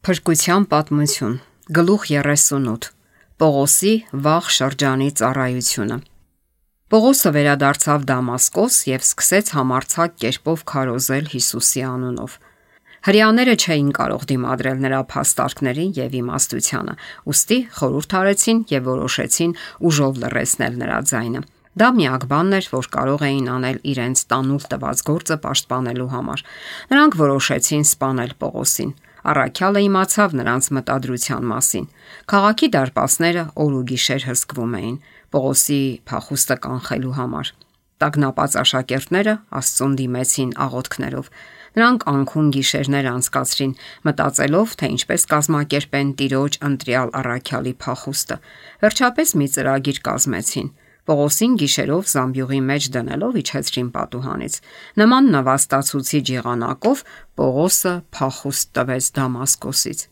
Փրկության պատմություն, գլուխ 38, Պողոսի վաղ շրջանի ծառայությունը։ Պողոսը վերադարձավ Դամասկոս և սկսեց համարձակ կերպով քարոզել Հիսուսի անունով։ Հրեաները չէին կարող դիմադրել նրա փաստարկներին և իմաստությանը, ուստի խորհուրդ արեցին և որոշեցին ուժով լռեցնել նրա ձայնը։ Դա միակ բանն էր, որ կարող էին անել իրենց տանուլ տված գործը պաշտպանելու համար։ Նրանք որոշեցին սպանել Պողոսին։ Առաքյալը իմացավ նրանց մտադրության մասին։ Քաղաքի դարպասները օր ու գիշեր հսկվում էին Պողոսի փախուստը կանխելու համար։ Տագնապած աշակերտները Աստծուն դիմեցին աղոթքներով։ Նրանք անքուն գիշերներ անցկացրին, մտածելով, թե ինչպես կազմակերպեն Տիրոջ ընտրյալ առաքյալի փախուստը։ Վերջապես մի ծրագիր կազմեցին։ Պողոսին գիշերով զամբյուղի մեջ դնելով իջեցրին պատուհանից։ Նման նվաստացուցիչ եղանակով Պողոսը փախուստ տվեց Դամասկոսից։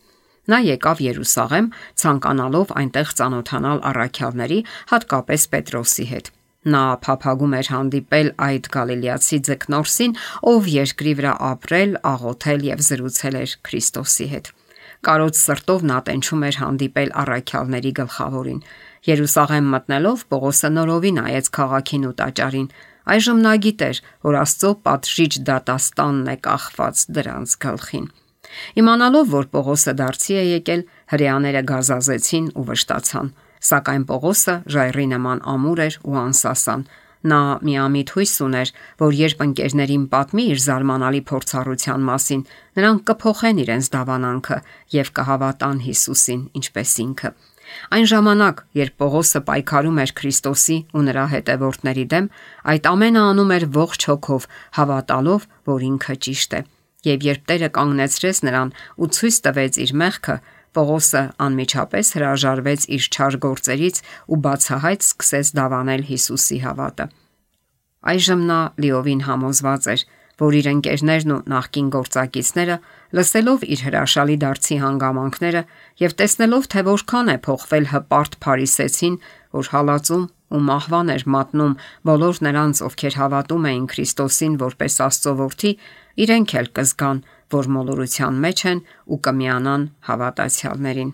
Նա եկավ Երուսաղեմ, ցանկանալով այնտեղ ծանոթանալ առաքյալների, հատկապես Պետրոսի հետ։ Նա փափագում էր հանդիպել այդ գալիլեացի ձկնորսին, ով երկրի վրա ապրել, աղոթել և զրուցել էր Քրիստոսի հետ։ Կարոտ սրտով նա տենչում էր հանդիպել առաքյալների գլխավորին։ Երուսաղեմ մտնելով Պողոսը նորովի նայեց քաղաքին ու տաճարին։ Այժմ նա գիտեր, որ Աստծո պատժիչ դատաստանն է կախված դրանց գլխին։ Իմանալով, որ Պողոսը դարձի է եկել, հրեաները գազազեցին ու վշտացան։ Սակայն Պողոսը ժայռի նման ամուր էր ու անսասան։ Նա միամիտ հույս ուներ, որ երբ ընկերներին պատմի իր զարմանալի փորձառության մասին, նրանք կփոխեն իրենց դավանանքը և կհավատան Հիսուսին, ինչպես ինքը։ Այն ժամանակ, երբ Պողոսը պայքարում էր Քրիստոսի ու նրա հետևորդների դեմ, այդ ամենը անում էր ողջ հոգով, հավատալով, որ ինքը ճիշտ է։ Եվ երբ Տերը կանգնեցրեց նրան ու ցույց տվեց իր մեղքը, Պողոսը անմիջապես հրաժարվեց իր չար գործերից ու բացահայտ սկսեց դավանել Հիսուսի հավատը։ Այժմ նա լիովին համոզված էր, որ իր ընկերներն ու նախկին գործակիցները, լսելով իր հրաշալի դարձի հանգամանքները եւ տեսնելով, թե որքան է փոխվել հպարտ փարիսեցին, որ հալածում ու մահվան էր մատնում բոլոր նրանց, ովքեր հավատում էին Քրիստոսին որպես Աստծո որդի, իրենք էլ կզգան, որ մոլորության մեջ են ու կմիանան հավատացյալներին։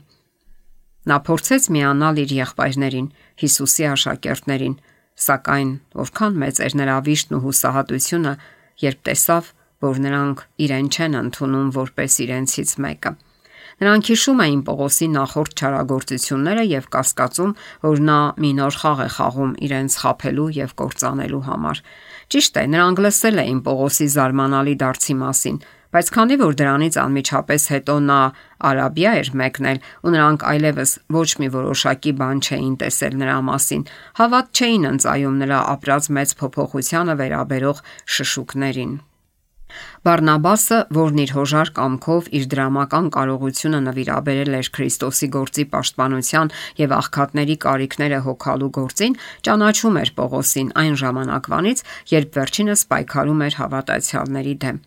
Նա փորձեց միանալ իր եղբայրներին, Հիսուսի աշակերտներին, սակայն որքան մեծ էր նրա վիշտն ու հուսահատությունը, երբ տեսավ, որ նրանք իրեն չեն ընդունում որպես իրենցից մեկը։ Նրանք հիշում էին Պողոսի նախորդ չարագործությունները եւ կասկածում, որ նա մի նոր խաղ է խաղում իրենց խաբելու եւ կործանելու համար։ Ճիշտ է, նրանք լսել էին Պողոսի զարմանալի դարձի մասին, բայց քանի որ դրանից անմիջապես հետո նա Արաբիա էր մեկնել ու նրանք այլևս ոչ մի որոշակի բան չէին տեսել նրա մասին, հավատ չէին ընծայում նրա ապրած մեծ փոփոխությանը վերաբերող շշուկներին։ Բարնաբասը, որն իր հոժար կամքով իր դրամական կարողությունը նվիրաբերել էր Քրիստոսի գործի պաշտպանության եւ աղքատների կարիքները հոգալու գործին, ճանաչում էր Պողոսին այն ժամանակվանից, երբ վերջինս պայքարում էր հավատացյալների դեմ։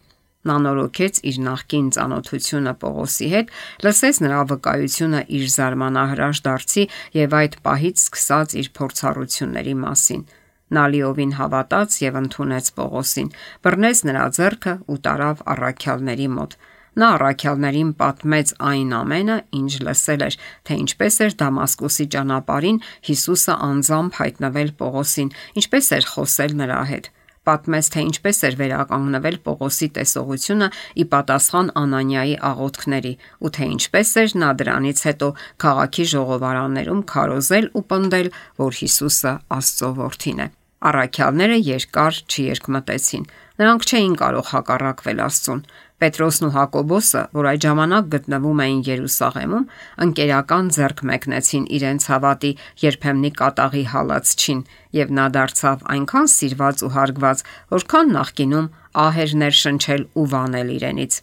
Նա նորոգեց իր նախկին ծանոթությունը Պողոսի հետ, լսեց նրա վկայությունը իր զարմանահրաշ դարձի եւ այդ պահից սկսած իր փորձառությունների մասին։ Նա լիովին հավատաց եւ ընդունեց Պողոսին, բռնեց նրա ձեռքը ու տարավ առաքյալների մոտ։ Նա առաքյալներին պատմեց այն ամենը, ինչ լսել էր, թե ինչպես էր Դամասկոսի ճանապարհին Հիսուսը անձամբ հայտնվել Պողոսին, ինչպես էր խոսել նրա հետ։ Պատմեց, թե ինչպես էր վերականգնվել Պողոսի տեսողությունը ի պատասխան Անանիայի աղոթքների ու թե ինչպես էր նա դրանից հետո քաղաքի ժողովարաններում քարոզել ու պնդել, որ Հիսուսը Աստծո որդին է։ Առաքյալները երկար չերկմտեցին։ Նրանք չէին կարող հակառակվել Աստծուն։ Պետրոսն ու Հակոբոսը, որ այդ ժամանակ գտնվում էին Երուսաղեմում, ընկերական ձեռք մեկնեցին իրենց հավատի երբեմնի կատաղի հալածչին, եւ նա դարձավ այնքան սիրված ու հարգված, որքան նախկինում ահ էր ներշնչել ու վանել իրենից։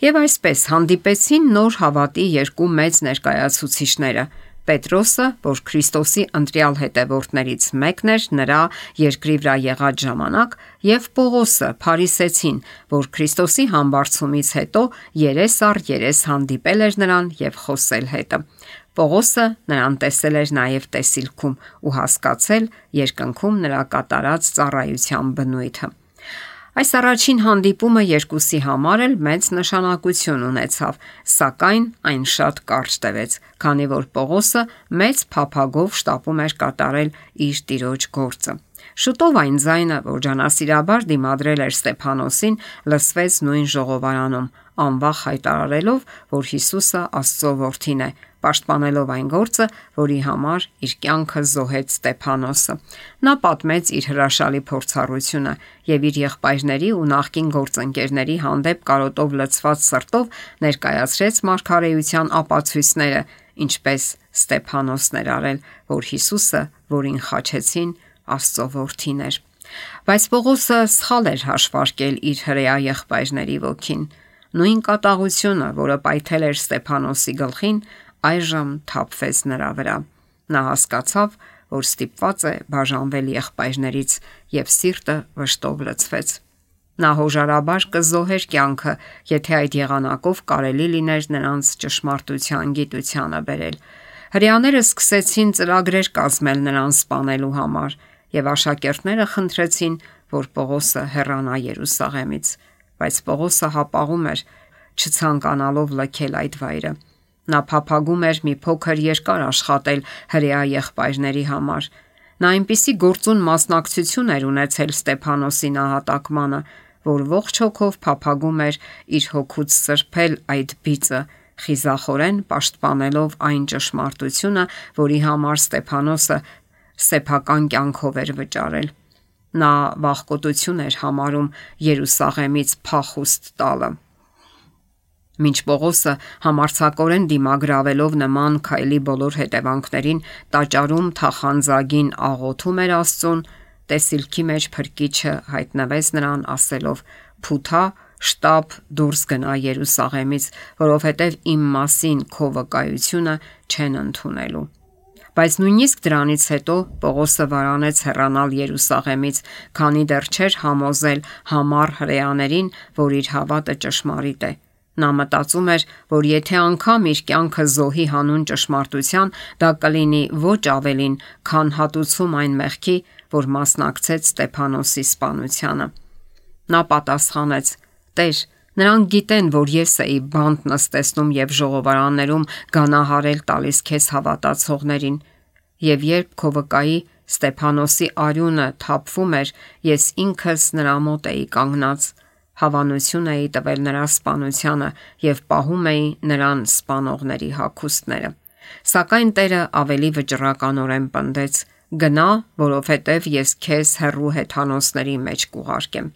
Եվ այսպես հանդիպեցին նոր հավատի երկու մեծ ներկայացուցիչները՝ Պետրոսը, որ Քրիստոսի ընտրյալ հետևորդներից մեկն էր նրա երկրի վրա եղած ժամանակ, եւ Պողոսը, փարիսեցին, որ Քրիստոսի համբարձումից հետո երես առ երես հանդիպել էր նրան եւ խոսել հետը։ Պողոսը նրան տեսել էր նաեւ տեսիլքում ու հասկացել երկնքում նրա կատարած ծառայության բնույթը։ Այս առաջին հանդիպումը երկուսի համար էլ մեծ նշանակություն ունեցավ, սակայն այն շատ կարճ տևեց, քանի որ Պողոսը մեծ փափագով շտապում էր կատարել իր տիրոջ գործը։ Շուտով այն ձայնը, որ ջանասիրաբար դիմադրել էր Ստեփանոսին, լսվեց նույն ժողովարանում, անվախ հայտարարելով, որ Հիսուսը Աստծո որդին է, պաշտպանելով այն գործը, որի համար իր կյանքը զոհեց Ստեփանոսը։ Նա պատմեց իր հրաշալի փորձառությունը եւ իր եղբայրների ու նախկին գործընկերների հանդեպ կարոտով լցված սրտով ներկայացրեց մարգարեության ապացույցները, ինչպես Ստեփանոսն էր արել, որ Հիսուսը, որին խաչեցին, Աստծո որդին էր։ Բայց Պողոսը սխալ էր հաշվարկել իր հրեա եղբայրների ոգին։ Նույն կատաղությունը, որը պայթել էր Ստեփանոսի գլխին, այժմ թափվեց նրա վրա։ Նա հասկացավ, որ ստիպված է բաժանվել եղբայրներից եւ սիրտը վշտով լցվեց։ Նա հոժարաբար կզոհեր կյանքը, եթե այդ եղանակով կարելի լիներ նրանց ճշմարտության գիտությանը բերել։ Հրեաները սկսեցին ծրագրեր կազմել նրան սպանելու համար, եւ աշակերտները խնդրեցին, որ Պողոսը հեռանա Երուսաղեմից, բայց Պողոսը հապաղում էր, չցանկանալով լքել այդ վայրը։ Նա փափագում էր մի փոքր երկար աշխատել հրեա եղբայրների համար։ Նա այնպիսի գործուն մասնակցություն էր ունեցել Ստեփանոսի նահատակմանը, որ ողջ հոգով փափագում էր իր հոգուց սրբել այդ բիծը, խիզախորեն պաշտպանելով այն ճշմարտությունը, որի համար Ստեփանոսը սեփական կյանքով էր վճարել։ Նա վախկոտություն էր համարում Երուսաղեմից փախուստ տալը։ Մինչ Պողոսը համարձակորեն դիմագրավելով նման քայլի բոլոր հետևանքներին տաճարում թախանձագին աղոթում էր Աստծուն, տեսիլքի մեջ փրկիչը հայտնվեց նրան ասելով. «Փութա, շտապ դուրս գնա Երուսաղեմից, որովհետև իմ մասին քո վկայությունը չեն ընդունելու»։ Բայց նույնիսկ դրանից հետո Պողոսը վարանեց հեռանալ Երուսաղեմից, քանի դեռ չէր համոզել համառ հրեաներին, որ իր հավատը ճշմարիտ է։ Նա մտածում էր, որ եթե անգամ իր կյանքը զոհի հանուն ճշմարտության, դա կլինի ոչ ավելին, քան հատուցում այն մեղքի, որ մասնակցեց Ստեփանոսի սպանությանը։ Նա պատասխանեց. «Տեր, նրանք գիտեն, որ ես էի բանտ նստեցնում եւ ժողովարաններում գանահարել տալիս քեզ հավատացողներին, եւ երբ քո վկայի Ստեփանոսի արյունը թափվում էր, ես ինքս նրա մոտ էի կանգնած, հավանություն էի տվել նրա սպանությանը եւ պահում էի նրան սպանողների հագուստները»։ Սակայն Տերը ավելի վճռականորեն պնդեց. «Գնա, որովհետև ես քեզ հեռու հեթանոսների մեջ կուղարկեմ»։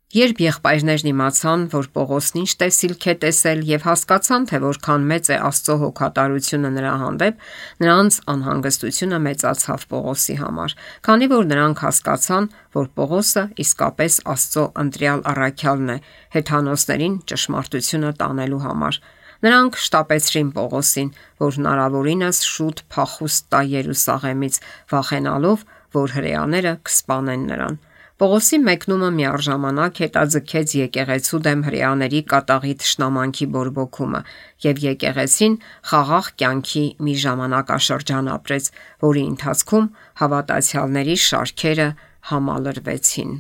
Երբ եղբայրներն իմացան, որ Պողոսն ինչ տեսիլք է տեսել եւ հասկացան, թե որքան մեծ է Աստծո հոգատարությունը նրա հանդեպ, նրանց անհանգստությունը մեծացավ Պողոսի համար, քանի որ նրանք հասկացան, որ Պողոսը իսկապես Աստծո ընտրյալ առաքյալն է հեթանոսներին ճշմարտությունը տանելու համար։ Նրանք շտապեցրին Պողոսին, որ հնարավորինս շուտ փախուստ տա Երուսաղեմից, վախենալով, որ հրեաները կսպանեն նրան։ Պողոսի մեկնումը միառժամանակ հետաձգեց եկեղեցու դեմ հրեաների կատաղի թշնամանքի բորբոքումը, եւ եկեղեցին խաղաղ կյանքի մի ժամանակաշրջան ապրեց, որի ընթացքում հավատացյալների շարքերը համալրվեցին։